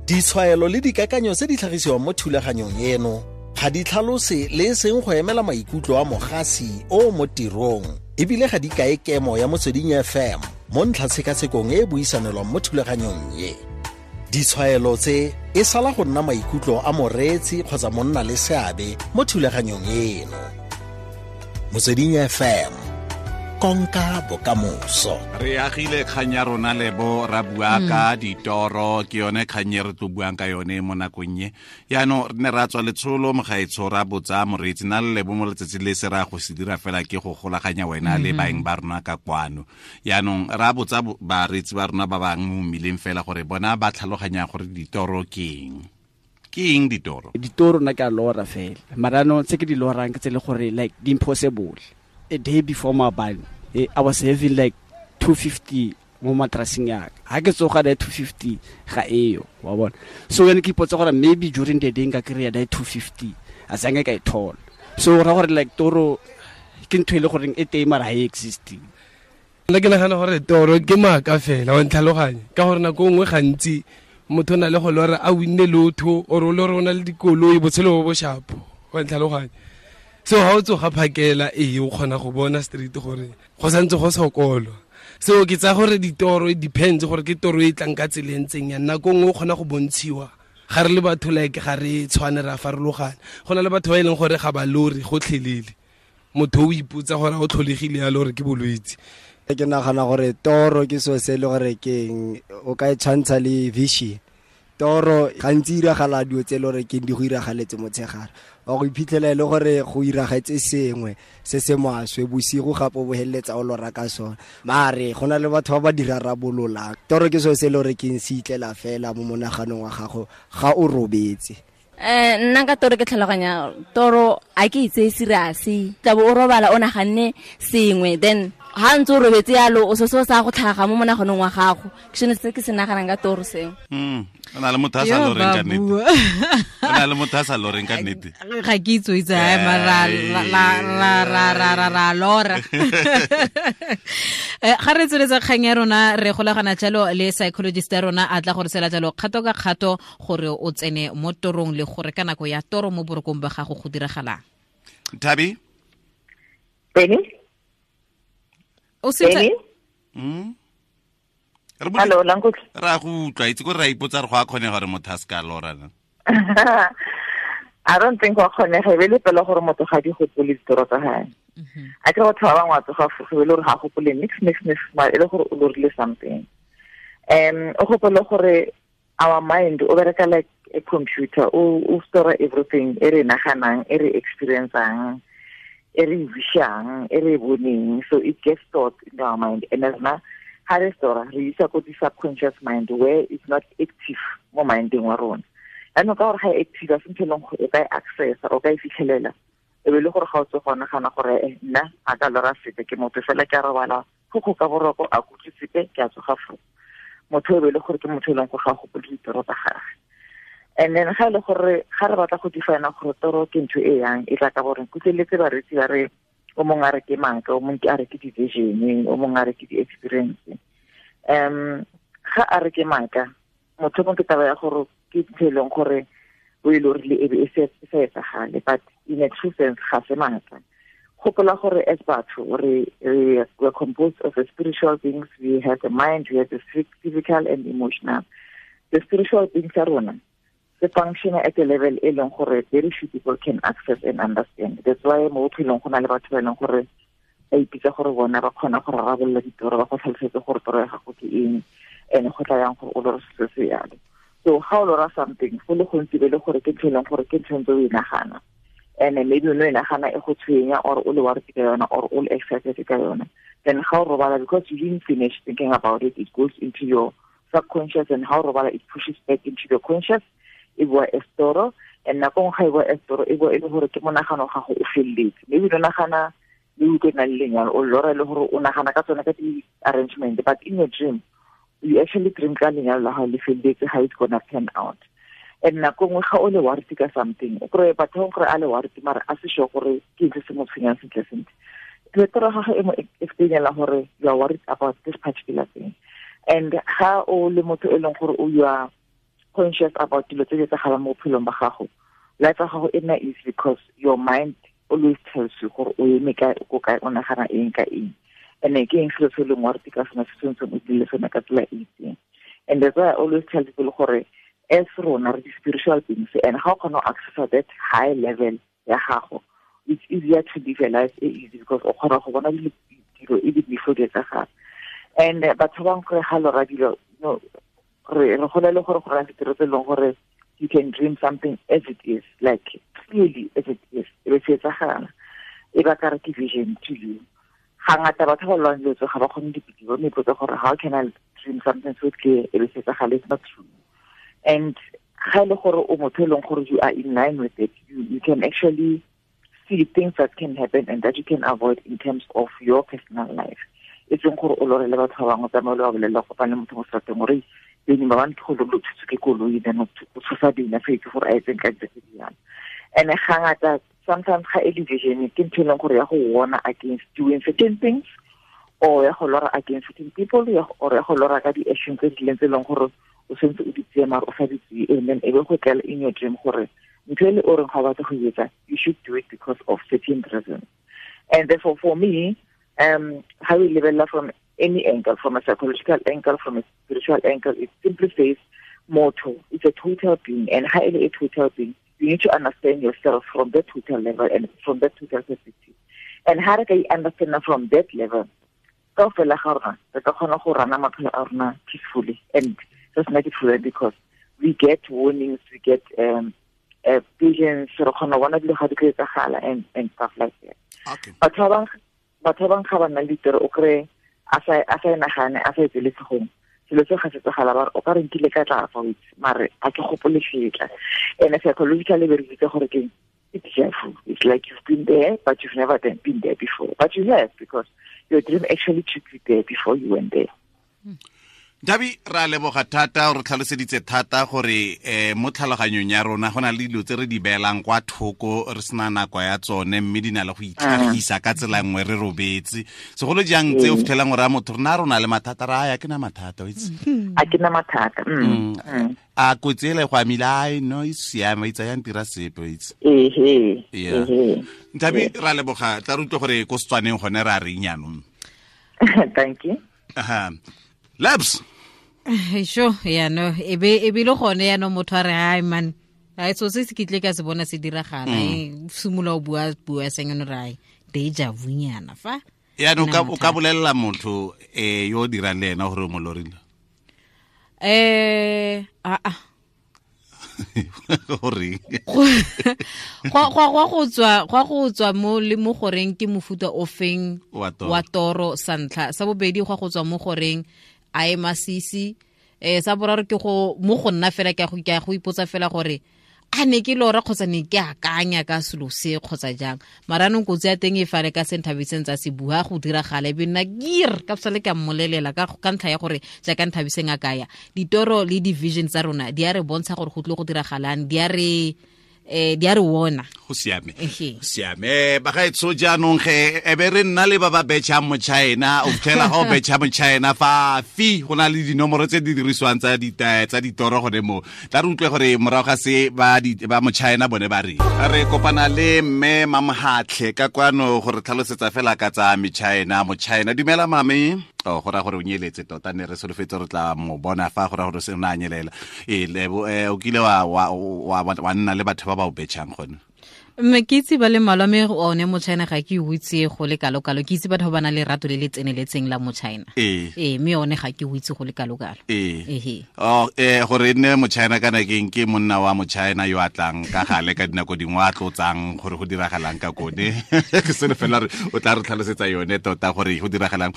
Ditshwaelo le dikakanyo tse di tlhagisiwang mo thulaganyong eno ga di tlhalose le e seng go emela maikutlo a mogasi o mo tirong, ebile ga di kae kemo ya Motsweding FM mo ntlhatshekasekong e e buisanelwang mo thulaganyong ye. Ditshwaelo tse e sala go nna maikutlo a moreetsi kgotsa monna le seabe mo thulaganyong eno. Motsweding FM, konka bokamoso. Re agile kgang ya rona Lebo, ra bua ka ditoro, ke yone kgang e re tlo buang ka yone mo nakong e. Yaanong re ne ra tswa letsholo mogaetsho, ra botsa moreetsi na le Lebo mo letsatsi le se ra go se dira fela ke go golaganya wena le baeng ba rona ka kwano. Yaanong ra botsa bareetsi ba rona ba bangwe mo mmileng fela gore bona ba tlhaloganya gore ditoro ke eng. Ke eng ditoro? Ditoro nna ke a lora fela, mara no tse ke di lorang ke tse le gore like di impossible. A day before maabane, I was having like 250 mo matraseng ya ka. Ha ke tsoga that 250 ga eyo, wa bona. So yone ke ipotsa gore maybe during the day nka kry-a that 250, a sange ka e thola. So ra gore like toro ke ntho e le goreng e teng mara ha e exist. Nna ke nagana gore toro ke maaka fela, wa ntlhaloganya, ka gore nako nngwe gantsi motho o na le go lora a winne lotho, or o lore o na le dikoloi, botshelo bo bo shapo, wa ntlhaloganya. So ha o tsoga phakela, ee, o kgona go bona straight gore go santse go sokolwa. So ke tsaya gore ditoro e depends gore ke toro e tlang ka tsela e ntseng yang. Nako nngwe o kgona go bontshiwa, ga re le batho like ga re tshwane, re a farologana. Go na le batho ba e leng gore ga ba lore gotlhelele, motho o ipotsa gore o tlholegile yalo gore ke bolwetse. Ke nagana gore toro ke selo se e le gore ke eng, o ka e tshwantsha le vision. Toro gantsi e iragala dilo tse e le gore ke eng di go iragaletse motshegare, wa go iphitlhela e le gore go iragetse sengwe se se maswe bosigo, gape o bo feleletsa o lora ka sone. Mare go na le batho ba ba di rarabololang. Toro ke selo se e le gore ke eng, se itlela fela mo monaganong wa gago ga o robetse. Nna ka toro ke tlhaloganya toro a ke itse serious, tla bo o robala o naganne sengwe, then ha ntse o robetse yalo o se se sa go tlhaga mo monaganong wa gago. Ke sone se ke se naganang ka toro seo. O na le motho a sa Yo, loreng ka ba nnete. bua. O na le motho a sa loreng ka nnete. Ga ke itse o itse, ai, mara ra, ra, ra, ra, ra, ra, ra lora. Ga re tsweletsa kgang ya rona, re golagana jalo le psychologist ya rona a tla gore sela jalo kgato ka kgato gore o tsene mo torong le gore ka nako ya toro mo borokong ba gago go diragalang. Thabi? Benny? O se Benny? Re botse- Hello, la nkutlwa? Ra go utlwa, itse gore ra ipotsa re go a kgonega gore motho a se ka lora na. I don't think wa kgonega, e be le pela gore motho ga di gopole ditoro tsa hae. A ke batho ba bangwe wa tsoga fo, e be le gore ga gopole nix, nix, nix, mara e le gore o lorile something. O gopole gore our mind o bereka like a computer, o store everything e re naganang, e re experiencang, e re wishang, e re boneng. So it gets stored in our mind. And as na ha re store, re isa ko di subconscious mind where it's not active mo mindeng wa rona. Yaanong ka gore ga e active, a se ntho e leng gore o ka e accessa, o ka e fitlhelela. E be le gore ga o tse go nagana gore, nna a ka lora sepe, ke motho fela ke a robala, go go ka boroko, a kutlwe sepe, ke a tsoga foo. Motho e be le gore ke motho e leng gore ga a gopole ditoro tsa gagwe. And then ga e le gore ga re batla go define gore toro ke ntho e yang, e tla ka gore kutlweletse bareetsi ba re o mongwe a re ke maaka, o mongwe a re ke di-vision, o mongwe a re ke di-experience. Ga a re ke maaka, motho mongwe ke taba ya gore ke ntho e leng gore o e lorile e be e e sa etsagale, but in a true sense ga se maaka. Gopola gore as batho we are composed of the spiritual beings, we have the mind, we have the physical and emotional. The spiritual beings tsa rona se function at a level e leng gore very few people can access and understand. That's why mo bophelong go na le batho ba e leng gore ba ipitsa gore bona ba kgona go rarabolola ditoro, ba go tlhalosetse gore toro ya gago ke eng, and go tla yang gore o lore se se yalo. So ga o lora something, go le gontsi be le gore ke ntho e leng gore ke ntho e ntse o e nagana, and maybe o no e nagana e go tshwenya, or o le worried ka yona, or o le excited ka yona. Then ga o robala, because you didn't finish thinking about it, it goes into your subconscious, and ha o robala it pushes back into your conscious. E boa e store, and nako nngwe ga e boa e store, e boa e le gore ke monagano ga go o felletse. Maybe o nagana le utlwe na le lenyalo, o lora e le gore o nagana ka tsone ka di-arrangement, but in your dream, you actually dream ka lenyalo la gago le felletse, how it's gonna pan out. And nako nngwe ga o le worried ka something, o kry-e batho ba gore a le worried, mara a se sure gore ke eng se se mo tshwenyang sentle sentle. Toro ya gagwe e mo explain-ela gore you are worried about this particular thing. And ga o le motho e leng gore o you are conscious about dilo tse di etsagalang mo bophelong ba gago, life ya gago e nna easy because your mind always tells you gore o eme kae, o ko kae, o nagana eng ka eng. And ke eng selo se e leng wa re ka sona se tshwanetseng o dile sone ka tsela e itseng. And that's why I always tell people gore as rona re di-spiritual beings, and ga o kgona go accessa that high level ya gago, it's easier to live a life e easy because o kgona go bona dilo even before di etsagala. And batho ba bangwe gore ga lora dilo, no, re gola le gore go raya ditiro tse e leng gore you can dream something as it is, like clearly as it is, e be se etsagala, e ba ka re ke vision to you. Ga ngata batho ba lwang dilo tse ga ba kgone dipitse, ba ipotsa gore how can I dream something so clear e be se etsagala, it's not true. And ga e le gore o motho e leng gore you are in line with it, you can actually see things that can happen and that you can avoid in terms of your personal life. E seng gore o lore le batho ba bangwe, tsamaye o ba bolelle, o kopane le motho mo seterateng gore beng ba bang ke go lo thuswe ke koloi, then o tshosa bina fa itse gore a etseng ka dilo tse di jalo. And ga ngata sometimes ga e le vision ke ntho e leng gore ya go warna against doing certain things, or ya go lora against certain people, or ya go lora ka di-action tse di leng tse e leng gore o sentse o di tseye mare o sa di tseye, and then e be go tlela in your dream gore ntho e le o reng ga o batla go e etsa, you should do it because of certain reasons. And therefore for me, how we lebelela from any angle, from a psychological angle, from a spiritual angle, it simply says mortal. It's a total being, and highly a total being. You need to understand yourself from that total level and from that total perspective. And how can you understand from that level? Kaofela ga rona, re ka kgona go rana maphelo a rona peacefully and just make it fluent, because we get warnings, we get visions, re kgona go bona dilo ga di tlo etsagala and stuff like that. Okay. Batho ba bangwe ga ba nna le ditoro, o kry-e a sa e nagane, a sa e tsele tlhogong, selo se ga se tsagala, ba re o ka re nkile ka tla fa o itse, mare a ke gopole setla. And psychologically be re bitse gore ke it's deja vu. It's like you've been there, but you've never been there before. But you have, because your dream actually took you there before you went there. Dabi, ra leboga thata, o re tlhaloseditse thata gore mo tlhaloganyong ya rona go na le dilo tse re di beelang kwa thoko re sena nako ya tsone, mme di na le go itlhagisa ka tsela nngwe re robetse. Segolo jang tse o fitlhelang gore a motho rena rona le mathata, ra ya ke na mathata, o itse. A ke na mathata. A kotsi ele go amile, ai no e siame, itse ya ntira sepe, o itse. Ehe. Nthabi, ra leboga, tla re utlwe gore ko Setswaneng gone ra reng jaanong. Thank you. Aha. Labs. Sure, ya no, e be le gone ya no motho a re ai man, ai so se se kitle ka se bona se diragala, e simolola o bua seng no rai deja vu nyana fa. Ya no o ka bolella motho yo dirang le ena gore o mo lorile. A Gore go tswa mo le mo goreng ke mofuta o feng wa toro sa ntlha, sa bobedi go tswa mo goreng a e masisi, sa boraro ke go mo go nna fela ke go ipotsa fela gore a ne ke lora kgotsa ne ke akanya ka selo se kgotsa jang. Mara anong kotsi ya teng e fale ka se Nthabiseng tsa se bua go diragala, e be nna gear ka sale ka mmolelela ka ntlha ya gore jaaka Nthabiseng a kaya ditoro le di-vision tsa rona di a re bontsha gore go tlile go diragalang, di a re wona. Go siame. Siame. Bagaetsho jaanong ge e be re nna le ba ba betšhang mo China, o fitlhela ga o betšha mo China fa fi go na le dinomoro tse di dirisiwang tsa ditoro gone mo. Tla re utlwe gore morago ga se ba mo China bone ba re. Re kopana le mme Mamhatlhe ka kwano gore tlhalosetsa fela ka tsa mo China, mo China. Dumela mame. Oh, go ra gore o nyeletse tota, ne re solofetse re tla mo bona fa go ra gore se o ne a nyelela. Lebo, o kile wa nna le batho ba ba o betšhang gone? Mme ke itse ba le mmalwa, mme one mo China ga ke o itse go le kalo-kalo. Ke itse batho ba ba nang le rato le le tseneletseng la mo China. Ee, mme one ga ke o itse go le kalo-kalo. Ee. Oh, gore e nne mo China kana ke eng, ke monna wa mo China yo a tlang ka gale ka dinako dingwe a tlotsang gore go diragalang ka kone. Ke selo fela re o tla re tlhalosetsa yone tota gore go diragalang.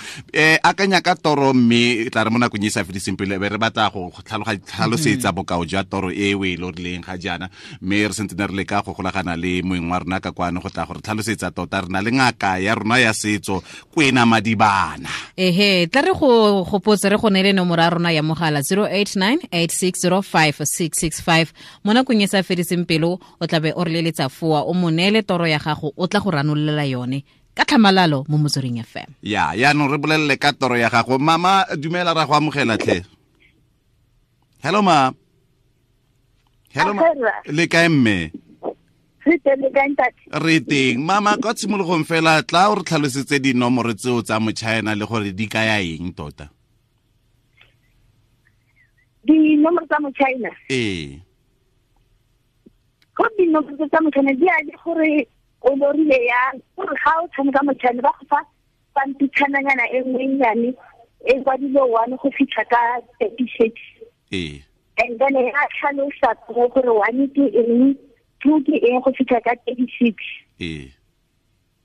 Akanya ka toro, mme e tla re mo nakong e sa fediseng pelo, be re batla go tlhalosetsa bokao jwa toro e o e lorileng ga jaana, mme re sentse ne re leka go golagana le moeng wa rona ka kwano go tla gore tlhalosetsa tota. Re na le ngaka ya rona ya setso Kwena Madibana. Ehe, tla re go gopotse re go neele nomoro ya rona ya mogala 0898605665. Mo nakong e sa fediseng pelo o tla be o re leletsa foa, o mo neele toro ya gago, o tla go ranolela yone ka tlhamalalo mo Motsweding FM. Ya, yaanong re bolelele ka toro ya gago. Mama, dumela, ra go amogela tlhe. Hello ma. Hello, le kae mme? Re teng, le kae ntate? Re teng. Mama, kwa tshimologong fela tla o re tlhalosetse dinomoro tseo tsa motšhaena le gore di kaya eng tota. Dinomoro tsa motšhaena? Ee. Go dinomoro tsa motšhaena di a le gore o lorile yang, gore ga o tshameka motšhaena ba go fa pampitshananyana e nngwe nnyane e kwadile 1 go fitlha ka 36. Ee. And then e a tlhalosa gore 1 ke eng, 2 ke eng go fitlha ka 36. Ee.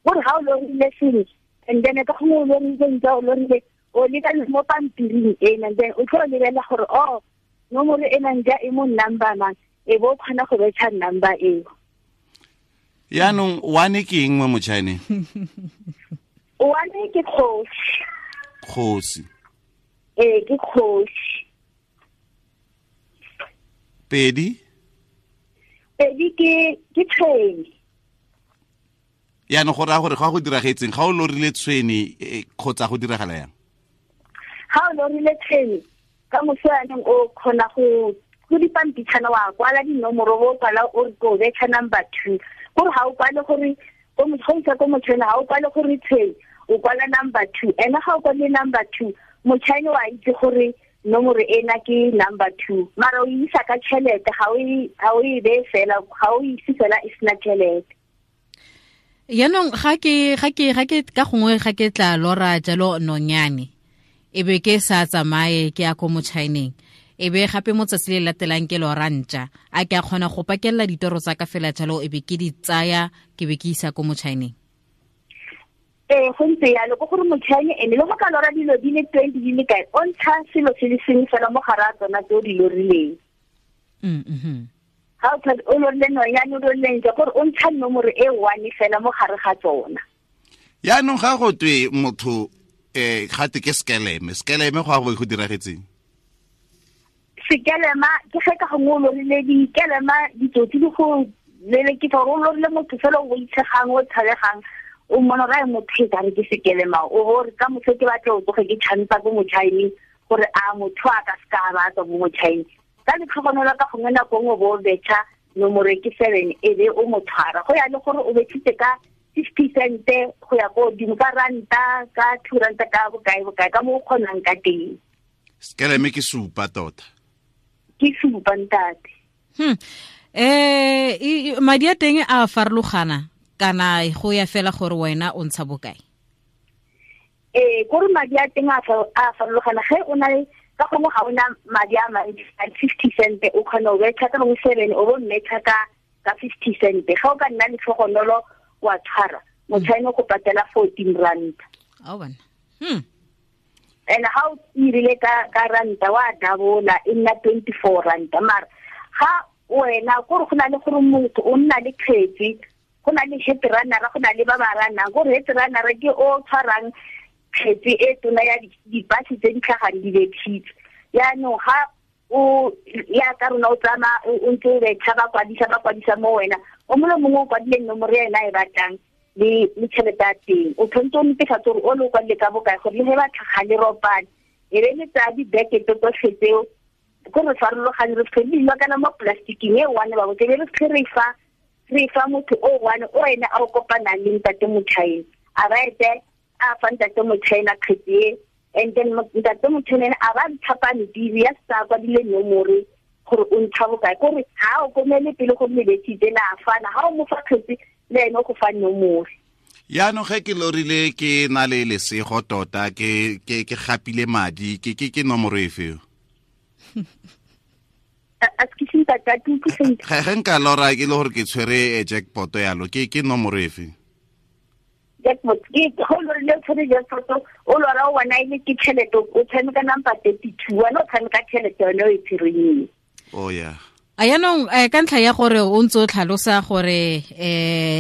Gore ga o lorile sengwe, and then ka gongwe o lorile ntse o lorile o leka mo pampiring ena, and then o tlo lebelela gore oh nomoro ena nja e mo number mang, e bo o kgona go betšha number eo. Yaanong 1 ke eng mo motšhaeneng? 1 ke kgosi. Kgosi. Ee, ke kgosi. 2? 2 ke tshwene. Yaanong go raya gore ga go diragetseng, ga o lorile tshwene kgotsa go diragala yang? Ga o lorile tshwene, ka moso yaanong o kgona go dipampitshana wa kwala dinomoro, bo kwala o re ko betšha number 2. Gore ga o kwale gore go isa ko motšhaene, ga o kwale gore tshwene, o kwala number 2. Ene ga o kwale number 2, motšhaene wa itse gore nomoro ena ke number 2. Mara o isa ka tšhelete, ga o e beye fela, ga o ise fela e sena tšhelete. Yaanong ga ke ka gongwe ga ke tla lora jalo nonyane, e be ke sa tsamaye ke ya ko motšhaeneng, e be gape mo tsatsi le latelang ke lora ntša, a ke a kgona go pakelela ditoro tsa ka fela jalo e be ke di tsaya ke be ke isa ko motšhaeneng? Ee, go ntse yalo, ke gore motšhaene ene le go ka lora dilo di le 20 di le kae, o ntsha selo se le sengwe fela mo gare a tsona tse o di lorileng. Ga o lorile nonyane, o lorile ntša, gore o ntsha nomoro e 1 fela mo gare ga tsona. Yaanong ga go twe motho gate ke skeleme, skeleme go a go diragetseng? Sekelema ke ge ka gongwe o lorile dikelema, ditsotsi di go lelekisa, gore o lorile motho fela o boitshegang, o tshabegang, o mmona ra e motho e kare ke sekelema, o bo re ka moso ke batla o tsoge ke tšhampa ko motšhaeneng gore a motho a ka seka ba tswa mo motšhaeneng. Ka letlhogonolo ka gongwe nako nngwe bo o betšha nomoro ke 7 e be o mo tshwara, go ya le gore o betšhitse ka 50 cent go ya ko godimo, ka ranta, ka 2 ranta, ka bokae bokae, ka mo o kgonang ka teng. Sekeleme ke supa tota. Ke supa ntate. Madi a teng a farologana kana go ya fela gore wena o ntsha bokae? Ee, kore madi a teng a farologana. Ge o na le ka gongwe ga ona madi a mantsi, a 50 cent o kgona go betšha ka gongwe 7, o bo mmetšha ka 50 cent. Ga o ka nna letlhogonolo wa tshwara, motšhaene o go patela 14 rand. Ao bana. And ga o irile ka ranta wa dabola e nna 24 ranta. Mara ga wena kore go na le gore motho o nna le kgetsi, go na le head runner, go na le ba ba runang, gore head runner ke o tshwarang kgetsi e tona ya dipasi tse di tlhagang di betšhitse. Yaanong ga o ya ka rona o tsamaya o ntse o betšha, ba kwadisa mo wena, o mongwe le mongwe o kwadile nomoro ya ena e batlang le tšhelete ya teng. O tshwanetse o netefatse gore o le o kwadile ka bokae, gore le ge ba tlhaga le ropane e be le tsaya dibekete tsotlhe tseo, ko re farologane re fitlhe di kana mo plasticing e one ba botse, be re fitlhe re fa motho o one o ene a o kopanang le ntate motšhaene, a ba ete a fa ntate motšhaene kgetsi e, and then ntate motšhaene a ba ntsha pampiri ya sa kwadile nomoro gore o ntsha bokae, kore ga o komele pele go lebetsitse la fana, ga o mo fa kgetsi le ene o go fa nomoro. Yaanong ge ke lorile ke na le lesego tota, ke gapile madi, ke nomoro efe? Ge nka lora ke le gore ke tshwere jackpot yalo, ke nomoro efe? Jackpot ke go lorile o tshwere jackpot, o lora o bona e le ke tšhelete, o tshameka number 32, wena o tshameka tšhelete yone o e tshwereng. Oh yeah. A yaanong ka ntlha ya gore o ntse o tlhalosa gore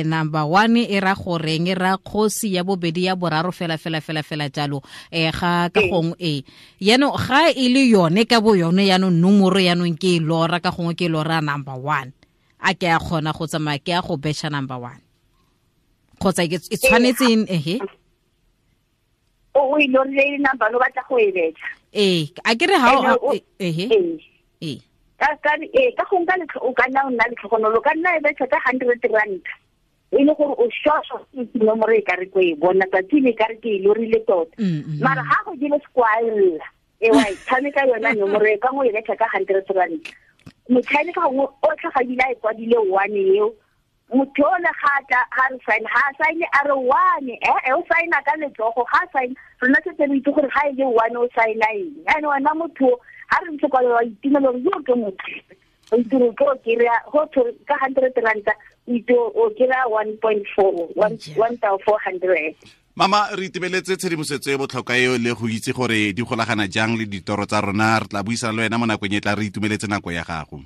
number 1 e ra goreng, e ra kgosi, ya bobedi, ya boraro, fela fela fela fela jalo, ga ka gongwe e yaanong ga e le yone ka bo yone yaanong nomoro yaanong ke e lora ka gongwe ke e lora number 1, a ke a kgona go tsamaya ke a go betšha number 1 kgotsa e tshwanetse ehe o e lorile number o batla go e betšha? Ee, a ke re ga ehe ee. Ka ka ka go nka o ka nna o nna letlhogonolo ka nna e betšha ka 100 rand e le gore o shosho nomoro e ka re ko e bona tsatsi le ka re ke e lorile tota. Mara ha go dile squall e wa e tshameka yona nomoro e ka go e betšha ka 100 rand. Motšhini ka gongwe o tlhaga e kwadile one eo motho o le ga tla ga re sign ha sign a re one o signa ka letsogo ga sign rona setse re itse gore ga e le one o signa eng. And wena motho ha re ntse kwa wa itumela gore yo ke motho o itse gore ke o kry-a go ka 100 ranta o itse o kry-a 1.4 1400. Mama re itebeletse tshedimosetso e botlhokwa eo le go itse gore di golagana jang le ditoro tsa rona. Re tla buisana le wena mo nakong e tla. Re itumeletse nako ya gago.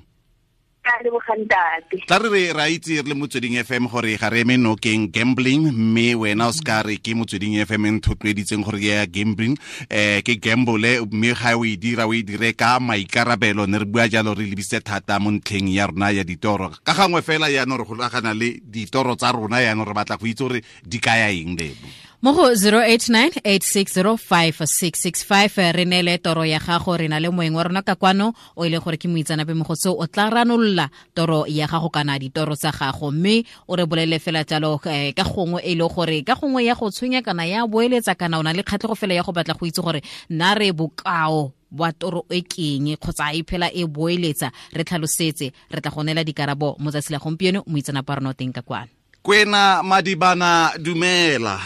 Tla re ra itse re le Motsweding FM gore ga re eme nokeng gambling, mme wena o ska re ke Motsweding FM e nthotloeditseng gore ke ya gambling, ke gamble, mme ga o e dira o e dire ka maikarabelo. Ne re bua jalo re lebisitse thata mo ntlheng ya rona ya ditoro. Ka gangwe fela yaanong re golagana le ditoro tsa rona, yaanong re batla go itse gore di kaya eng lebo. Mo go 0898605665 re neele toro ya gago. Re na le moeng wa rona ka kwano o e leng gore ke moitseanape mo go seo, o tla ranolola toro ya gago kana ditoro tsa gago, mme o re bolele fela jalo ka gongwe e le gore ka gongwe ya go tshwenya kana ya boeletsa kana o na le kgatlhego fela ya go batla go itse gore nna re bokao bwa toro e keng kgotsa e phela e boeletsa. Re tlhalosetse, re tla go neela dikarabo mo tsatsi la gompieno. Moitseanape wa rona o teng ka kwano. Kwena Madibana, dumela.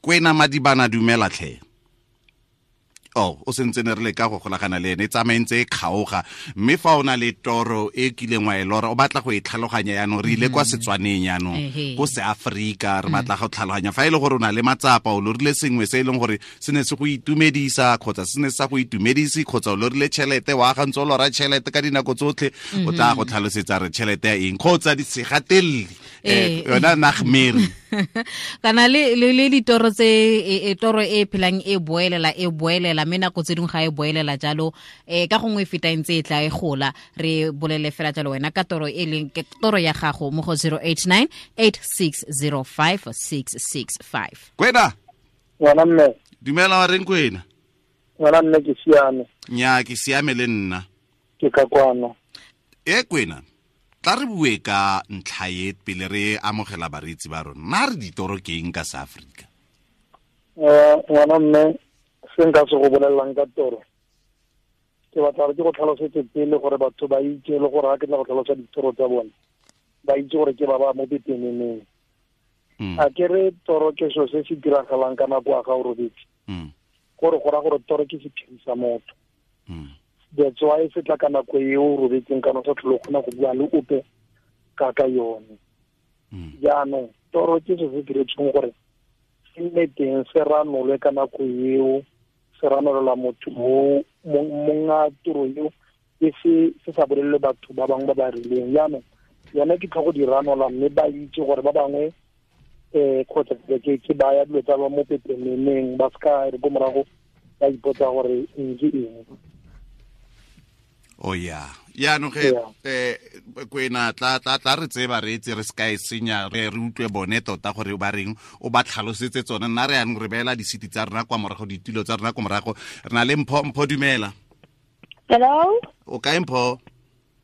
Kwena Madibana, dumela tlhe. Oh, o sentse ne re le ka go golagana le ene, e tsamaentse e kgaoga. Mme fa o na le toro e kileng wa e lora o batla go e tlhaloganya yaanong, re ile kwa Setswaneng yaanong, ko Seaforika, re batla go tlhaloganya. Fa e le gore o na le matsapa, o lorile sengwe se e leng gore se ne se go itumedisa kgotsa se ne sa go itumedise, kgotsa o lorile tšhelete, wa aga ntse o lora tšhelete ka dinako tsotlhe, o tla go tlhalosetsa re tšhelete ya eng kgotsa di segatelele yona nagmere kana le ditoro tse e toro e phelang e boelela e boelela, mme nako tse dingwe ga e boelela jalo ka gongwe e feta e ntse e tla e gola. Re bolele fela jalo wena ka toro e leng ke toro ya gago mo go 0898605665. Kwena ngwana mme, dumela wa reng Kwena? Ngwana mme ke siame. Nya ke siame le nna ke ka kwano. E Kwena, tla re bue ka ntlha e pele re amogela bareetsi ba rona. Nna re ditoro ke eng ka South Africa? Ngwana mme, se nka se go bolelelang ka toro ke batla gore ke go tlhalosetse pele gore batho ba itse le gore ga ke tla go tlhalosa ditoro tsa bone ba itse gore ke ba ba mo pepeneneng. A ke re toro ke selo se se diragalang ka nako ya ga o robetse, gore go raya gore toro ke sephiri sa motho. That's why se tla ka nako e o robetseng kana o sa tlhole o kgona go bua le ope ka ka yone. Jaanong toro ke se se diretsweng gore se nne teng se ranolwe ka nako eo, se ranolela motho o monga toro eo, e se sa bolelele batho ba bangwe ba ba rileng. Jaanong yone ke tlho go di ranola mme ba itse gore ba bangwe kgotsa ke baya dilo tsa ba mo pepeneneng, ba seka re ko morago ba ipotsa gore eng ke eng. Oh yeah. Yaanong ge Kwena tla re tseba re itse re se ka e senya, re utlwe bone tota gore ba reng, o ba tlhalosetse tsone. Nna re yanong re beela disiti tsa rona kwa morago, ditulo tsa rona kwa morago. Re na le Mpho. Mpho, dumela. Hello. O kae Mpho?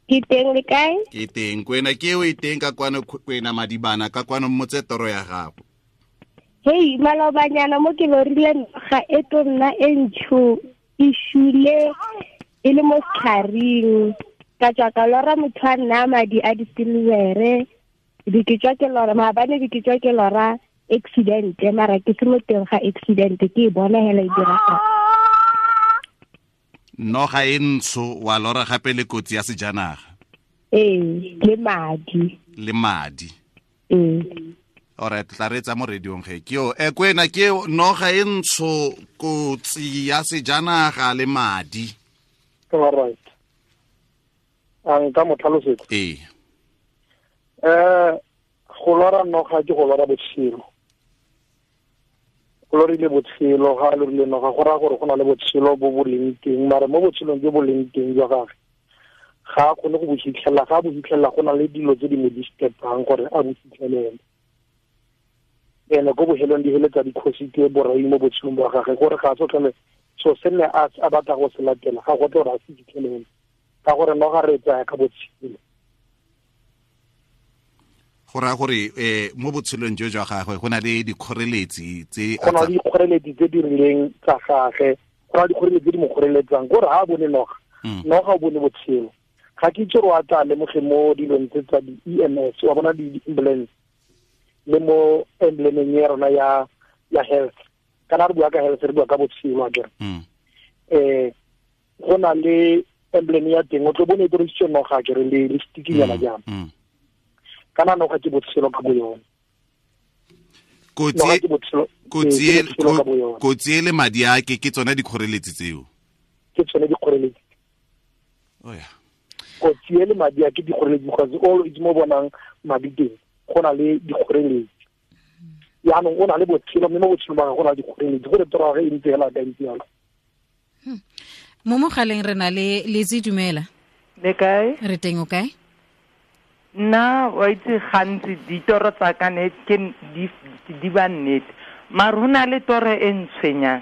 Ke teng, le kae? Ke teng. Kwena ke o e teng ka kwano, Kwena Madibana ka kwano, mmotse toro ya gago. Hei, malobanyana mo ke lorile noga e to nna e ntsho e shule e le mo setlhareng. Ka tswa ka lora motho a nna madi a disilvere, be ke tswa ke lora maabane, be ke tswa ke lora accident, mara ke se mo teng ga accident, ke e bona hela e diragala. Noga e ntsho wa lora gape le kotsi ya sejanaga. Ee, le madi. Le madi. Ee. Alright, tla re tsa mo radiong ge. Ke yo Kwena, ke noga e ntsho, kotsi ya sejanaga le madi. Alright. A nka mo tlhalosetsa? Ee. Go lora noga ke go lora botshelo. Go lorile botshelo, ga a lorile noga go raya gore go na le botshelo bo bo leng teng, mare mo botshelong jo bo leng teng jwa gagwe ga a kgone go bo fitlhelela. Ga a bo fitlhelela go na le dilo tse di mo disturbang gore a bo fitlhelele. Ene ko bohelong di heletsa dikgosi ke borai mo botshelong bwa gagwe, gore ga a se tlhole So se nne a batla go se latela ga go tle gore a se fitlhelele, ka gore noga re tsaya ka botshelo. Go raya gore mo botshelong jo jwa gagwe go na le dikgoreletsi tse go na le dikgoreletsi tse di rileng tsa gagwe, go na le dikgoreletsi tse di mo kgoreletsang, gore ga a bone noga, noga o bone botshelo. Ga ke itse gore a tla lemoge mo dilong tse tsa di-EMS, wa bona di-ambulance le mo emblemeng ya rona ya health. Kana re bua ka health, re bua ka botshelo akere. Go na le emblem ya teng, o tlo bone e dirisitswe noga akere le stikinyana jang. Kana noga ke botshelo ka bo yone. Kotsi e le madi a ke tsone dikgoreletsi tseo. Ke tsone dikgoreletsi. Oh yeah. Kotsi e le madi a ke dikgoreletsi, because all itse mo bonang madi teng go na le dikgoreletsi. Yaanong o na le botshelo, mme mo botshelong ba gagwe go na le dikgoreletsi, gore toro ya gagwe e ntse hela ka ntse yalo. Mo mogaleng re na le Lizzy, dumela. Le kae? Re teng, o kae? Nna wa itse gantsi ditoro tsa ka ne ke di ba nnete, mara ho na le toro e ntshwenyang.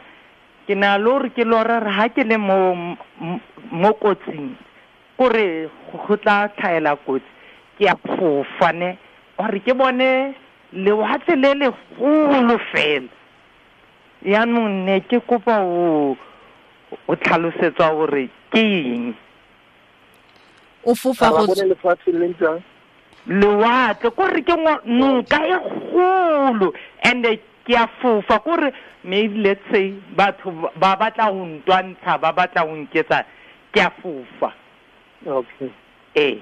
Ke na le hore ke lora re ha ke le mo kotsing, kore go tla tlhaela kotsi, ke a fofa ne, gore ke bone lewatle le legolo fela. Yaanong ne ke kopa o tlhalosetswa gore ke eng. O fofa go bone lefatshe le ntse lewatle, kore ke noka e kgolo, and ke a fofa, kore maybe let's say batho ba batla go ntwantsha, ba batla go nketsa, ke a fofa. Okay. Ee.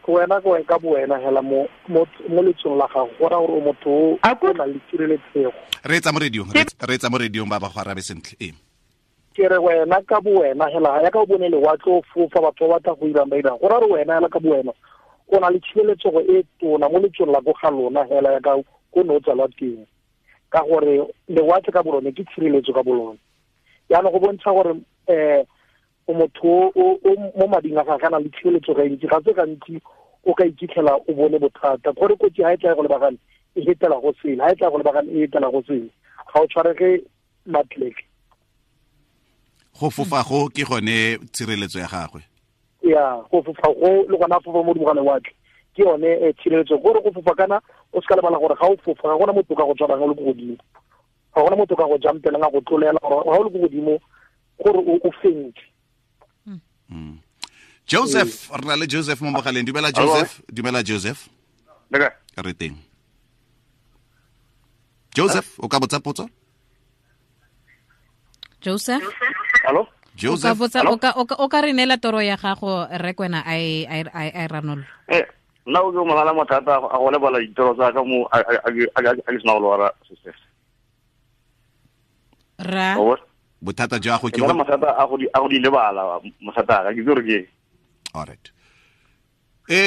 Wena ka bo wena hela mo letsong la gago, go raya gore o motho o na le tshireletsego. Re etsa mo radiong ba ba go arabe sentle. Ee. Ke re wena ka bo wena hela ya ka o bone lewatle o fofa, batho ba batla go irang ba irang, go raya gore wena hela ka bo wena o na le tshireletsego e tona mo letsong la ko ga lona hela ya ka ko ne o tsalwa teng, ka gore lewatle ka bolone ke tshireletso ka bolone. Jaanong go bontsha gore o motho o mo mading a gagwe a na le tshireletso ga ntsi, ga se gantsi o ka ikitlhela o bone bothata, gore kotsi ha e tla go lebagane e hetela go sele, ha e tla go lebagane e hetela go sele, ga o tshwarege matleke. Go fofa go ke gone tshireletso ya gagwe. Ya, go fofa go le gona fofa mo godimo ga lewatle ke yone tshireletso. Gore go fofa kana o se ka lebala gore ga o fofa ga gona motho ka go tshwarang o le ko godimo, ga gona motho ka go jumpelang a go tlolela, gore ga o le ko godimo gore o fentse. Joseph, re na le Joseph mo mogaleng. Dumela Joseph, dumela Joseph. Re teng. Joseph, o ka botsa potso? Joseph? Hello? Joseph. O ka re neela toro ya gago re kwena a e ranolo. Nna o ke mogala mathata a go lebala ditoro tsa ka mo a ke sena go lwara success. Ra bothata jwa go ke go mathata a go di lebala mathata ka ke gore ke. All right.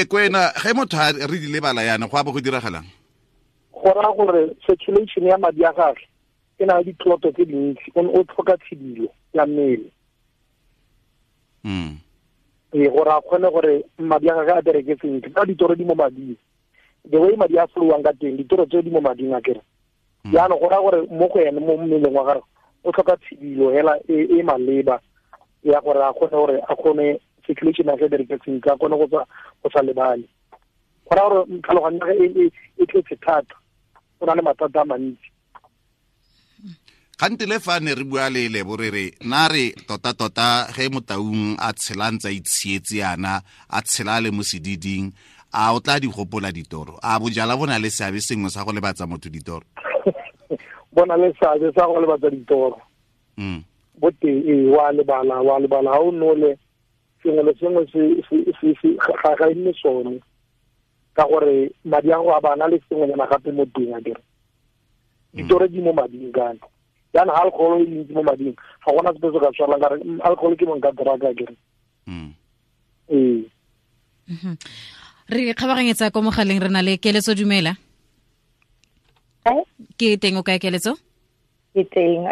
Kwena ge motho a re di lebala yana go a bo go diragalang? Go raya gore circulation ya madi a gagwe e na le ditloto tse dintsi, o tlhoka tshidilo ya mmele. Gore a kgone gore madi a gagwe a bereke sentle, ka ditoro di mo mading, the way madi a flowang ka teng, ditoro tse di mo mading a kere. Jaanong go raya gore mo go ene mo mmeleng wa gagwe o tlhoka tshidilo hela e maleba ya gore a kgone gore a kgone circulation ya gagwe bereke sentle, a kgone go sa lebale. Go raya gore tlhaloganyo ya gagwe e tletse thata, o na le mathata a mantsi. Gante le fa ne re bua le Lebo re re na re tota ge motaung a tshela ntse a itshietse yana, a tshela le mo sediding, a o tla di gopola ditoro? A bojala bo na le seabe sengwe sa go lebatsa motho ditoro? Bona le seabe sa go lebatsa ditoro. Bo teng, wa lebala, ha o nole sengwe le sengwe se ga e nne sone, ka gore madi a go a bana le sengwenyana gape mo teng a kere. Ditoro di mo mading kana. Jaanong alcohol e ntsi mo mading, ga gona sepe se ka tshwarang ka re alcohol ke monka drug a kere. Ee. Re kgabaganyetsa ko mogaleng, re na le Keletso. Dumela. Ke teng, o kae Keletso? Ke teng.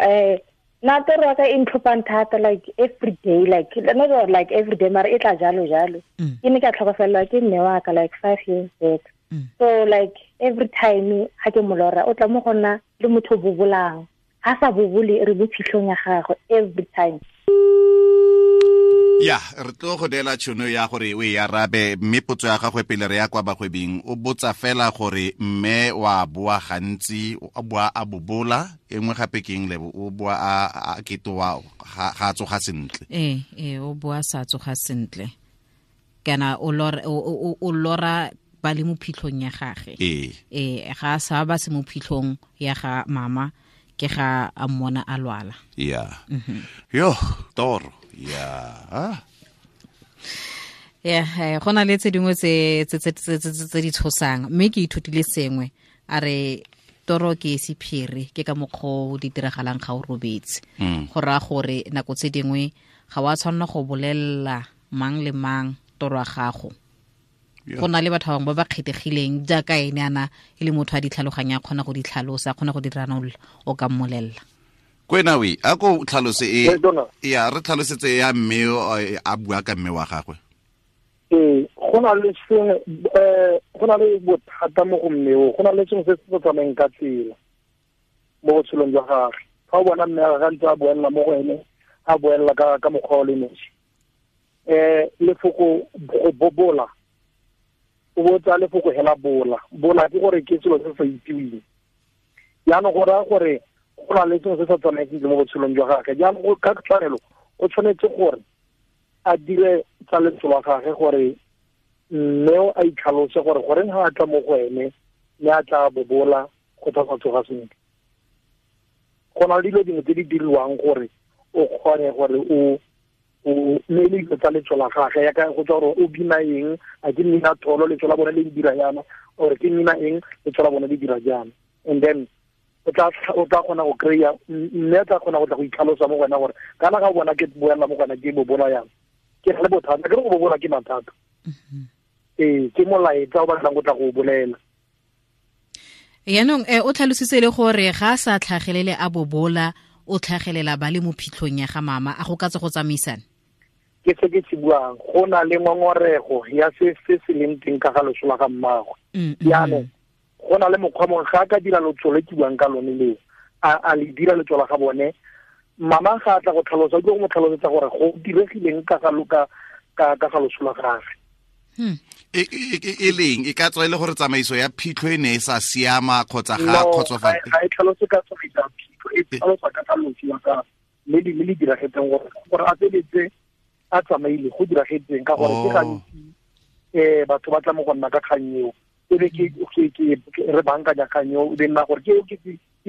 Nna toro ya ka e ntlhophang thata, like every day, like not like every day, mara e tla jalo jalo. Ke ne ka tlhokofelelwa ke mme wa ka like 5 years back. So like every time ha ke mo lora, o tla mo go nna le motho o bobolang. A sa bobole re bo phitlhong ya gagwe every time. Ya, re tlo go neela tšhono ya gore o e arabe, mme potso ya gagwe pele re ya kwa bagwebing, o botsa fela gore mme wa boa gantsi, o boa a bobola, e nngwe gape ke eng, Lebo? O boa a ketoa, ga a tsoga sentle. Ee, o boa sa tsoga sentle. Kana o lora ba le mo phitlhong ya gagwe. Ee, ga a sa ba se mo phitlhong ya ga mama, ke ga a mmona a lwala. Ya. Yo, toro. Ya. Yeah, go na le tse dingwe tse di tshosang, mme ke ithutile sengwe. A re toro ke sephiri, ke ka mokgwa o di diragalang ga o robetse. Go raya gore nako tse dingwe ga wa tshwanela go bolelela mang le mang toro ya gago. Go na le batho ba bangwe ba ba kgethegileng jaaka ene ana e le motho a di tlhaloganya, a kgona go di tlhalosa, a kgona go di ranolla, o ka mmolelela. Kwena we, a ko tlhalose e, ya re tlhalosetse ya mme a bua ka mme wa gagwe. Ee, go na le sengwe, go na le bothata mo go mme o, go na le sengwe se se tsamayng ka tsela mo botshelong jwa gagwe. Fa o bona mme a gagwe ntse a boelela mo go ene, a boelela ka mokgwa o le nosi. Lefoko go bobola, o botsa lefoko hela bola. Bola ke gore ke selo se se sa itseweng. Jaanong go raya gore go na le sengwe se sa tsamayeng sentle mo botshelong jwa gagwe. Jaanong ka tshwanelo o tshwanetse gore a dire tsa letso la gagwe gore mme a itlhalose gore goreng ga a tla mo go ene mme a tla bobola go tsa tsoga sentle. Go na le dilo dingwe tse di diriwang gore o kgone gore o mme le dilo tsa letso la gagwe, yaka go tswa gore o bina eng, a ke mmina tholo letso la bone le dira yana, or ke mmina eng letso la bone le dira jana. And then o tla kgona go kry-a, mme a tla kgona go tla go itlhalosa mo go wena gore kana ga o bona ke boela mo go wena ke bobola yana, ke na le bothata, ke re go bobola ke mathata. Ee, ke molaetsa o batlang go tla go bolela. Yaanong o tlhalositse le gore ga a sa tlhagelele a bobola, o tlhagelela ba le mo phitlhong ya ga mama, a go ka tse go tsamaisana? Ke se ke se buang, go na le ngongorego ya se se leng teng ka ga loso la ga mmagwe. Jaanong go na le mokgwa mongwe ga a ka dira lotso le ke buang ka lone leo, a le dira letso la ga bone, mama ga a tla go tlhalosa, o tlo go mo tlhalosetsa gore go diregileng ka ga loso la gagwe. E leng e ka tswa e le gore tsamaiso ya phitlho e ne e sa siama kgotsa ga kgotsofala? Ga e tlhalose ka tsamaiso ya phitlho, e tlhalosa ka ga loso la ka le le diragetseng gore a feletse a tsamaile go diragetseng, ka gore ke gantsi batho ba tla mo go nna ka kgang eo, e be ke re bankanya kgang eo, e be nna gore ke eo ke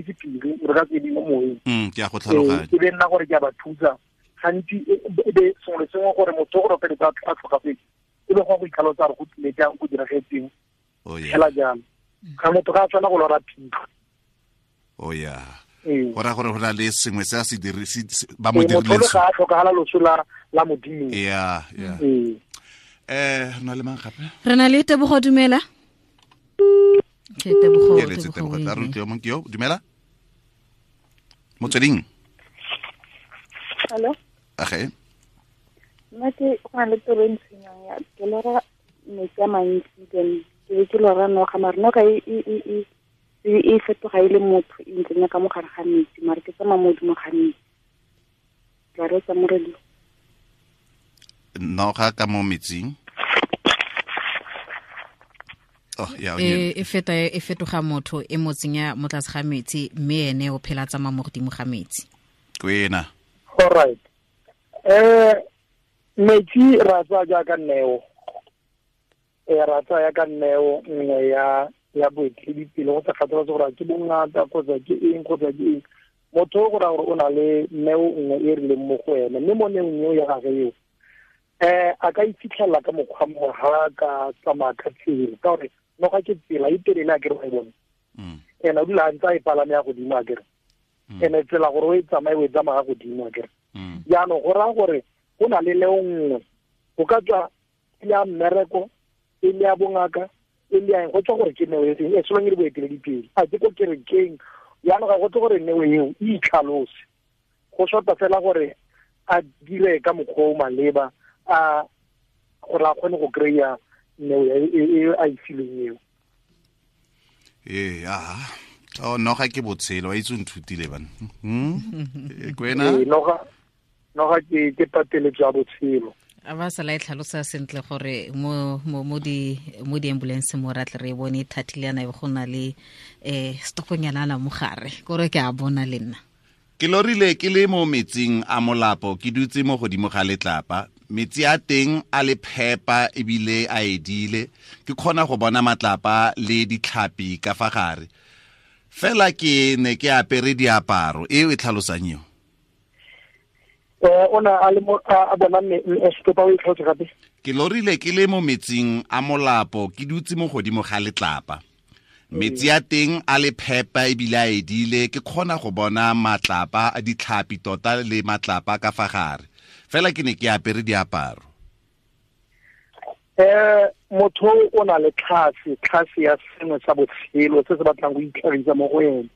sephiri, re ka se mo moyeng. Ke a go tlhaloganya. E be nna gore ke a ba thusa gantsi, e be sengwe le sengwe gore motho gore o feletse a tlhokafetse, e be go itlhalosa gore go tlile jang, go diragetseng fela jalo. Ga motho ga a tshwana go lora phitlho. Oh yeah. Go raya gore go na le sengwe se a se ba mo dirileng. Motho ga a tlhokagala loso la Modimo. Yeah, yeah. Re na le mang gape? Re na le Tebogo, dumela. Ke Tebogo. Ke letse Tebogo, tla re utlwe mong ke yo, dumela. Motsweding. Hello. Age. Nna ke go na le toro e ntshwenyang ya ke lora metsi a mantsi, then ke be ke lora noga, mare noga e fetoga e le motho, e ntsenya ka mogare ga metsi, mare ke tsamaya mo godimo ga metsi. Tla reetsa mo radio. Noga ka mo metsing? Oh, yeah, e fetoga motho, e mo tsenya mo tlase ga metsi, mme ene o phela tsamaya mo godimo ga metsi. Kwena. All right. Metsi ra tsaya jaaka neo. Ra tsaya ka neo nngwe ya boeteledipele, go sa kgathaletse gore ke bongata kgotsa ke eng kgotsa ke eng. Motho go raya gore o na le neo nngwe e rileng mo go ene, mme mo neong eo ya gagwe eo, a ka ifitlhela ka mokgwa mongwe ga ka tsamaya ka tsela, ka gore noga ke tsela e telele a kere wa e bone. Ene o dula a ntse a e palame ya godimo a kere. Ene tsela gore o e tsamaye o e tsamaya godimo a kere. Jaanong go raya gore go na le neo nngwe, go ka tswa e le ya mmereko, e le ya bongaka, e le ya eng, go tswa gore ke neo e feng, e solong e le boeteledipele, a ke ko kerekeng. Jaanong ga go tle gore neo eo e itlhalose, go shota fela gore a dire ka mokgwa o maleba, a gore a kgone go kry-a neo e a e filweng eo. Ee, Oh, noga ke botshelo, wa itse o nthutile bana. Kwena? Ee, noga ke pateletso ya botshelo. A ba sala e tlhalosa sentle gore mo mo mo di mo di ambulance mo ra tle re bone thatile yana e go na le stoponyana la mogare kore ke a bona le nna. Ke lorile ke le mo metsing a molapo, ke dutse mo godimo ga letlapa. Metsi a teng a le phepa ebile a edile, ke kgona go bona matlapa le ditlhapi ka fa gare. Fela ke ne ke apere diaparo, e e tlhalosang eo. O na a le mo a bona me stopa o e tlhalose gape. Ke lorile ke le mo metsing a molapo, ke dutse mo godimo ga letlapa. Metsi a teng a le phepa ebile a edile, ke kgona go bona matlapa a ditlhapi tota le matlapa ka fa gare. Fela ke ne ke apere diaparo. Motho o na le tlhase ya sengwe sa botshelo se se batlang go itlhagisa mo go ene.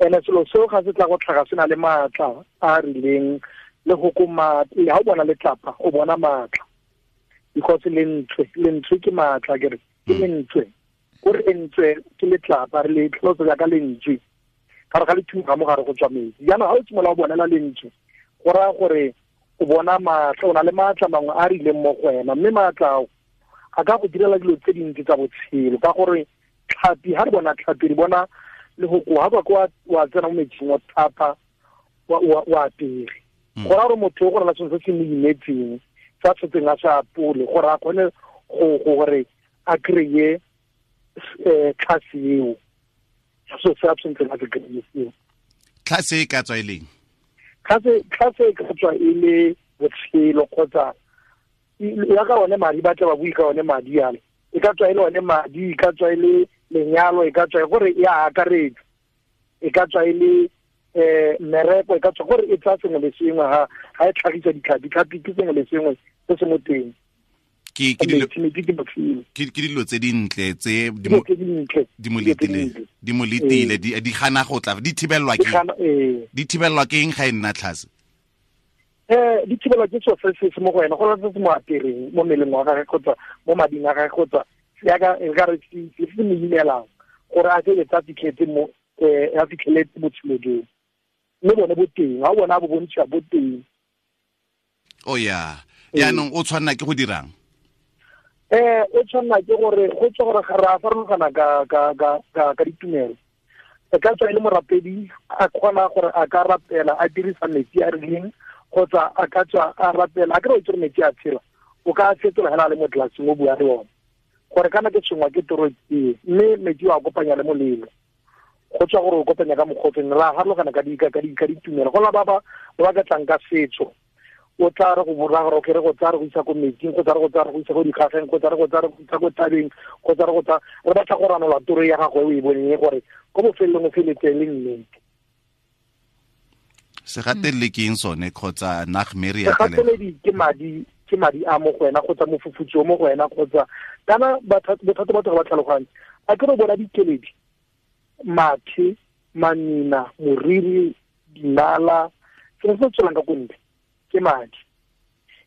Ene selo seo ga se tla go tlhaga se na le maatla a a rileng le go ko maatla. Ha o bona letlapa o bona maatla, because lentswe ke maatla, ke re ke lentswe. Gore lentswe ke letlapa, re le tlhalosa jaaka lentswe, ka re ga le thuga mo gare go tswa metsi. Jaanong ha o simolola o bonela lentswe, go raya gore o bona maatla, o na le maatla mangwe a rileng mo go wena, mme maatla ao a ka go direla dilo tse dintsi tsa botshelo. Ka gore tlhapi, ha re bona tlhapi, re bona le go koa, ha kwa wa tsena mo metsing wa thapa, wa apere. Go raya gore motho o go rela sengwe se se mo imetseng, sa tshetseng a sa apole, gore a kgone go gore a kry-e tlhase eo. So se a tshwanetseng a se kry-e seo. Tlhase e ka tswa e leng? Tlhase e ka tswa e le botshelo, kgotsa ya ka one madi, ba tla ba bue ka one madi ale. E ka tswa e le one madi, e ka tswa e le lenyalo, e ka tswa e gore e a akaretsa, e ka tswa e le mmereko, e ka tswa gore e tsaya sengwe le sengwe. Ha e tlhagisa ditlhapi, tlhapi ke sengwe le sengwe se se mo teng. Ke dilo tse dintle tse di mo letile, di gana go tla, di thibelwa ke di thibelwa ke eng ga e nna tlhase? Di thibelwa ke seo se se mo go wena, go se se mo apereng mo mmeleng wa gagwe kgotsa mo mading a gagwe, kgotsa yaka e ka re se se mo imelang gore a se etsa fitlhetse mo a fitlheletse botshelo joo. Mme bone bo teng, ha o bona bo bontšha bo teng. Oh ya, yaanong o tshwanela ke go dirang? O tshwanela ke gore go tswa gore ga re a farologana ka ditumelo. E ka tswa e le morapedi, a kgona gore a ka rapela a dirisa metsi a rileng, kgotsa a ka tswa a rapela a kry-e o itse gore metsi a tshela, o ka fetola hela a le mo tlelaseng o bua le one gore kana ke tshwenngwa ke toro e, mme metsi o a kopanya le molelo. Go tswa gore o kopanya ka mokgotseng, ra harologana ka ditumelo. Go la ba ba ka tlang ka setso, o tla re go bora gore okay, re go tsaya re go isa ko metsing, go tsaya re go tsaya re go isa ko dikgageng, go tsaya re go tsaya re go isa ko thabeng, go tsaya re go tsaya re batla go ranola toro ya gagwe o e boneng gore ko bofelelong o feletse le nnete. Segateledi ke eng sone, kgotsa nagmere ya Segateledi ke madi a mo go wena, kgotsa mofufutso mo go wena, kgotsa kana bothata batho ga ba tlhaloganye. A ke re bona dikeledi, mathe, manina, moriri, dinala, sengwe se tswelang ka ko ntle ke madi.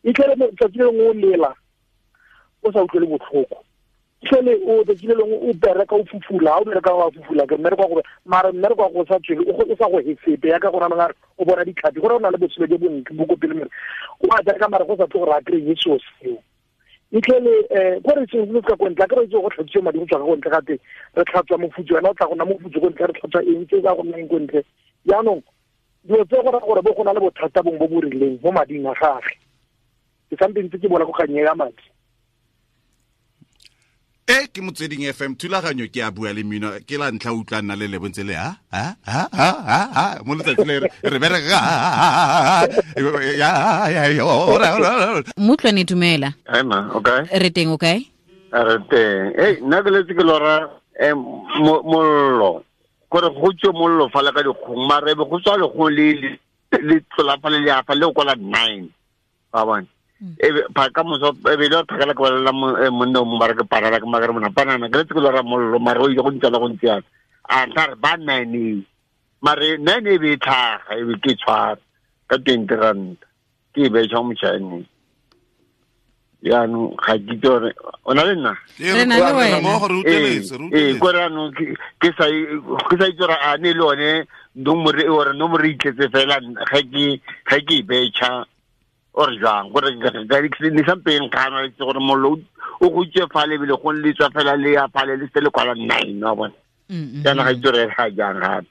E tlele tsatsi le lengwe o lela o sa utlwele botlhoko, tlele o tsatsi le lengwe o bereka o fufula, ha o bereka wa fufula ke mmereko wa go mara mmereko wa go sa tswele o sa go hesepe yaka go nana o bona ditlhapi, gore o na le botshelo jo bontle bo ko pele, mere o a bereka mara go sa tle gore a kry-e seo seo. E tlele gore sengwe se se ka ko ntle, a kry-e go tlhatswiwa madi go tswa ka ko ntle, gape re tlhatswa mofutso, wena o tla go nna mofutso ko ntle, re tlhatswa eng tse ka go nna eng ko ntle. Jaanong dilo tse go raya gore bo go na le bothata bongwe bo bo rileng mo mading a gagwe. Ke sampe ntse ke bona go kganye ya madi. Ke Motsweding FM, thulaganyo ke a bua le mmino, ke la ntlha utlwa nna le lebontse le ha ha ha ha ha mo letsatsi le re bereka ya ya ya. Motlwane dumela. Hi ma, okay. Re teng, okay? Re teng. Hey, nna ke letse ke lora mollo. Gore go tswe mollo fa le ka dikgong, mara ebe go tswa legong le le tlola fa le le afa le go la 9. Ba bona. Ebe pa ka moso ebe le phakela ke balela monna o mo mara ke parala ke magare mona panana ke letse ke lora mollo mara o ile go ntsala go ntsana. A tla re ba 9 mare 9 e be tlhaga e be ke tshwara ka 20 rand ke be tsha motšhane. Jaanong ga ke itse gore o na le nna. Re na le wena. Ee, kore jaanong ke sa itse gore a ne le one nomore e ore nomore e itletse fela ga ke e betšha or jang gore ne sampeng kgana itse gore mollo o go itse fale ebile go le tswa fela le ya fale le se le kwala 9 wa bona. Jaanong ga itse gore ga jang gape.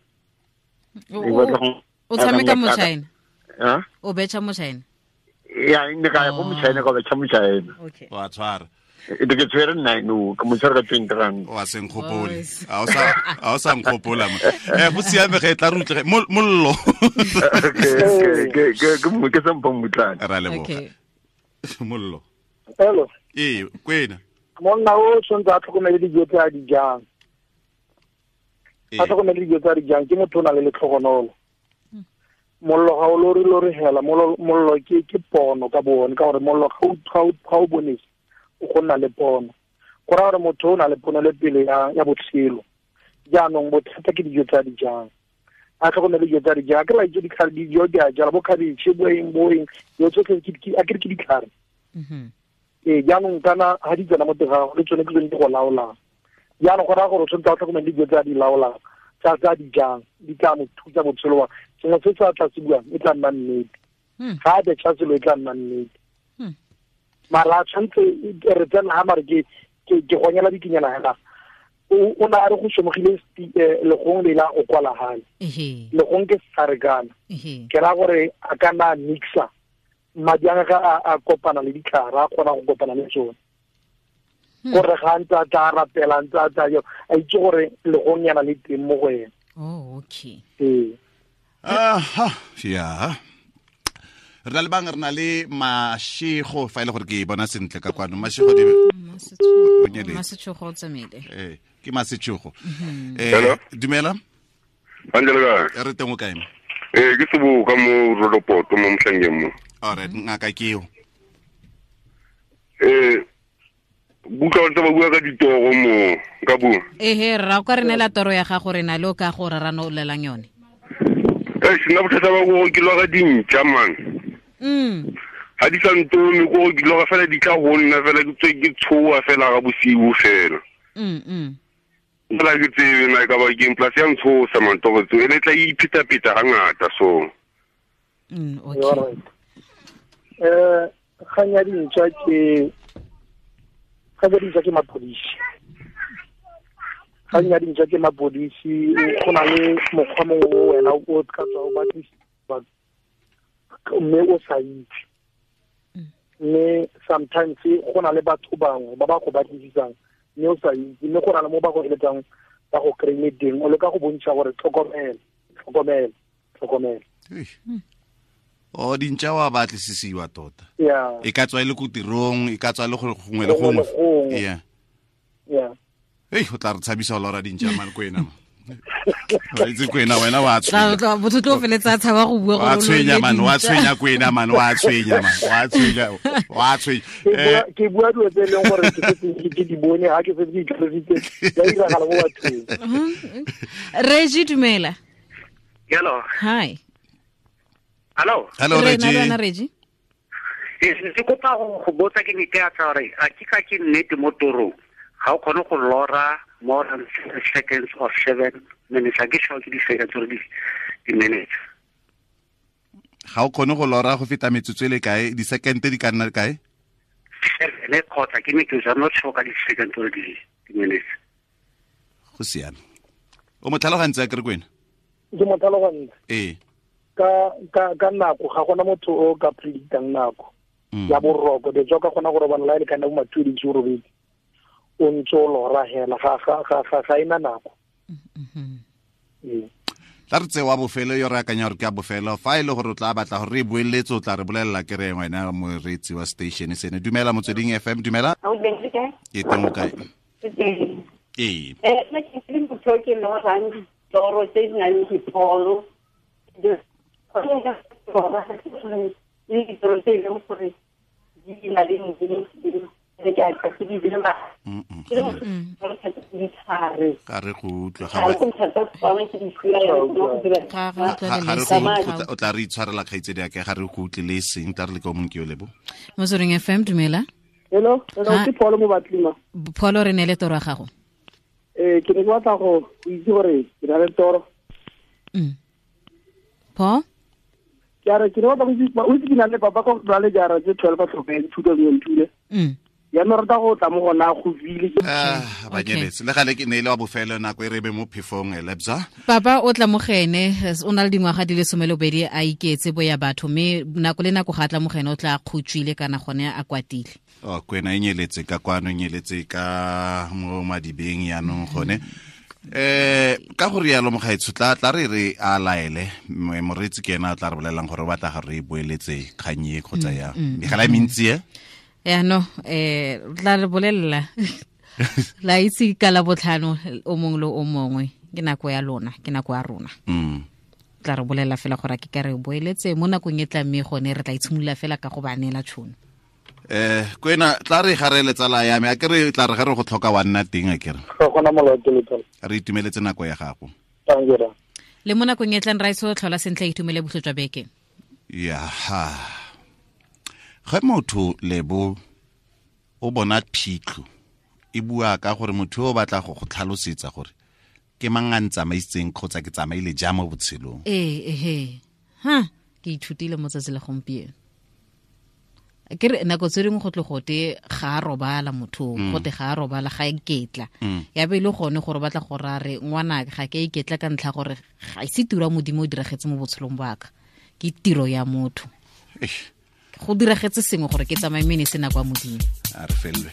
O tshameka mo China? O betšha mo China? Ya, ne ka ya ko Mochina ka betšha Mochina. Okay. Wa tshwara. E ke tshwere 9 o ka mo tshwara ka 20 rand. Wa se nkgopole. A o sa nkgopola mo. Go siame ge tla re utlwe mollo. Ke ke sa mmutlane. Ra leboga. Mollo. Hello. Ee, kwena. Monna o tshwanetse a tlhokomele dijo tse a di jang. A tlhokomele dijo tse a di jang ke motho o na le letlhogonolo. Mollo ga o lore lore hela, mollo ke pono ka bone, ka gore mollo ga o bonese o go nna le pono. Go raya gore motho o na le pono le pele ya botshelo. Jaanong bothata ke dijo tse a di jang. A tlhokomele dijo tse a di jang. Ke la itse ditlhare dijo di a jala bo khabetšhe bo eng bo eng, dilo tsotlhe a ke re ke ditlhare. Ee, jaanong kana ga di tsena mo teng ga gago le tsone ke tsone di go laolang. Jaanong go raya gore o tshwanetse a tlhokomele dijo tse a di laolang, tsa di jang, di tla mo thusa botshelo wa sengwe se se a tla se buang e tla nna nnete. Ga a betšha selo e tla nna nnete. Mara a tshwanetse re tsena ga mare ke gonyela dikinyana hela. O na a re go somogile legong le la go kwala gale. Legong ke setlhare. Ke raya gore a ka nna a mixa madi a gagwe a kopana le ditlhare, a kgona go kopana le tsone. Gore ga ntse a tla rapela ntse a tla a itse gore legong yana le teng mo go ena. Oh, okay. Ee. Aha, ya. Re na le bang, re na le Mashego fa ile gore ke bona sentle ka kwano. Mashego di Masetshogo o tsamaile. Ee, ke Masetshogo. Dumela. Angela. Re teng o kae? Ee, ke seboka mo Rodopoto mo Motlhangeng mo. All right, ngaka ke eo. Buka o ntse ba bua ka ditoro mo ka bua. Ehe, rra o ka re neela toro ya gago re na le o ka go rarano o lelang yone. Sena bothata ba gore ke lora dintšha man. Ga di sa ntone ko ke lora fela di tla go nna fela ke tswe ke tshoa fela ga bosigo fela. Fela ke tsebe na e ka ba keng plus ya ntshosa man toro tseo e le tla ipheta-pheta ga ngata so. Okay. Kgang ya dintšha ke mapodisi. Kgang ya dintšha ke mapodisi, go na le mokgwa mongwe o wena o ka tswa o batlisisa mme o sa itse. Mme sometimes go na le batho bangwe ba ba go batlisisang mme o sa itse, mme go na le mo ba go eletsang ba go kry-ile teng, o leka go bontšha gore tlhokomela, tlhokomela, tlhokomela. O dintšha wa batlisisiwa tota. Yeah. E ka tswa e le ko tirong, e ka tswa le go gongwe le gongwe. Yeah. Yeah. Ei, o tla re tshabisa o lora dintšha man kwena. Wa itse kwena wena wa tshwenya. Motho tlo feletsa a tshaba go bua gore wa tshwenya man, wa tshwenya kwena man, wa tshwenya man, wa tshwenya, wa tshwenya. Ke bua dilo tse e leng gore ke setse ke di bone, ga ke setse ke itlhalositse, di a diragala mo bathong. Reggie, dumela. Hello. Hi. Hello. Hello, Reggie. Reggie. Ke kopa go botsa ke ne ke a tsa gore a ke ka ke nnete mo torong ga o kgone go lora more than 7 seconds or 7 minutes. A ke sure ke di-seconds or di-minutes. Ga o kgone go lora go feta metsotso e le kae, di-second di ka nna kae? 7 kgotsa ke metsotso, I'm not sure ka di-seconds or di-minutes. Go siame. O mo tlhalogantse a kere kwena? Ke mo tlhalogantse. Ee. Ka nako ga gona motho o ka predictang nako ya boroko. De ka gona go robala la e le kana bo ma-2 o robedi o ntse o lora hela ga ena nako. Tla re tsewa bofelo yo re akanya gore ke a bofelo. Fa e le gore o tla batla gore re boeletse o tla re bolelela ke re wena moreetsi wa station sene. Dumela Motsweding FM, dumela. Ke teng o kae? Ee. Nna ke le motho ke lorang ditoro tse di nang le dipholo. Le ditoro tse e leng gore di na le Ga re go utlwa o tla re itshwarela kgaitsedi ya ka, ga re go utlwe le seng, tla re le ka o mongwe ke yo lebo. Motsweding FM, dumela. Hello, hello, Ha. ke Pholo mo Batlima. Pholo, re neele toro ya gago. Ke ne ke batla go itse gore ke na le toro. Paul? Ke a re ke ne batla go itse, o itse ke na le papa ko na le jara tse 12 a tlhokafetse 2002 le. Jaanong rata go tla mo gona go file. Ah, ba nyeletse le gale ke ne e le wa bofelo nako e re be mo phefong, Lebza. Papa o tla mo go ene, o na le dingwaga di le 12 a iketse bo ya batho, mme nako le nako ga a tla mo go ene o tla a kgotswile kana gone a kwatile. Oh, kwena e nyeletse ka kwano, e nyeletse ka mo madibeng yaanong gone. Ka go rialo, mogaetsho, tla re re a laele moreetsi, ke ena a tla re bolelelang gore o batla gore re e boeletse kgang e kgotsa yang. Megala e mentsi e. Yaanong tla re bolelela la itse ka la botlhano o mongwe le o mongwe, ke nako ya lona, ke nako ya rona. Tla re bolelela fela gore a ke ka re boeletse mo nakong e tla, mme gone re tla itshimolola fela ka go ba neela tšhono. Kwena, tla re ga re letsala ya me, a ke re tla re ga re go tlhoka wa nna teng, a ke re. Ga gona molato le tsala. Re itumeletse nako ya gago. Thank you, ra. Le mo nakong e tlang, raiso, tlhola sentle, itumele botlhe jwa beke. Ya ha ge motho lebo o bona phitlho e bua ka gore motho o batla go go tlhalosetsa gore ke mang a ntsamaisitseng kgotsa ke tsamaile jang mo botshelong. Ee, ehe, ha ke ithutile mo tsatsi la gompieno, ke re nako tse dingwe go tle gote ga a robala motho, gote ga a robala, ga a iketla. Ya be e le gone gore o batla go ra re ngwana ga ke a iketla ka ntlha gore ga ise tiro ya Modimo o diragetse mo botshelong ba ka, ke tiro ya motho. Eish. Go diragetse sengwe gore ke tsamaye, mme ne se nako ya Modimo. A re felelwe.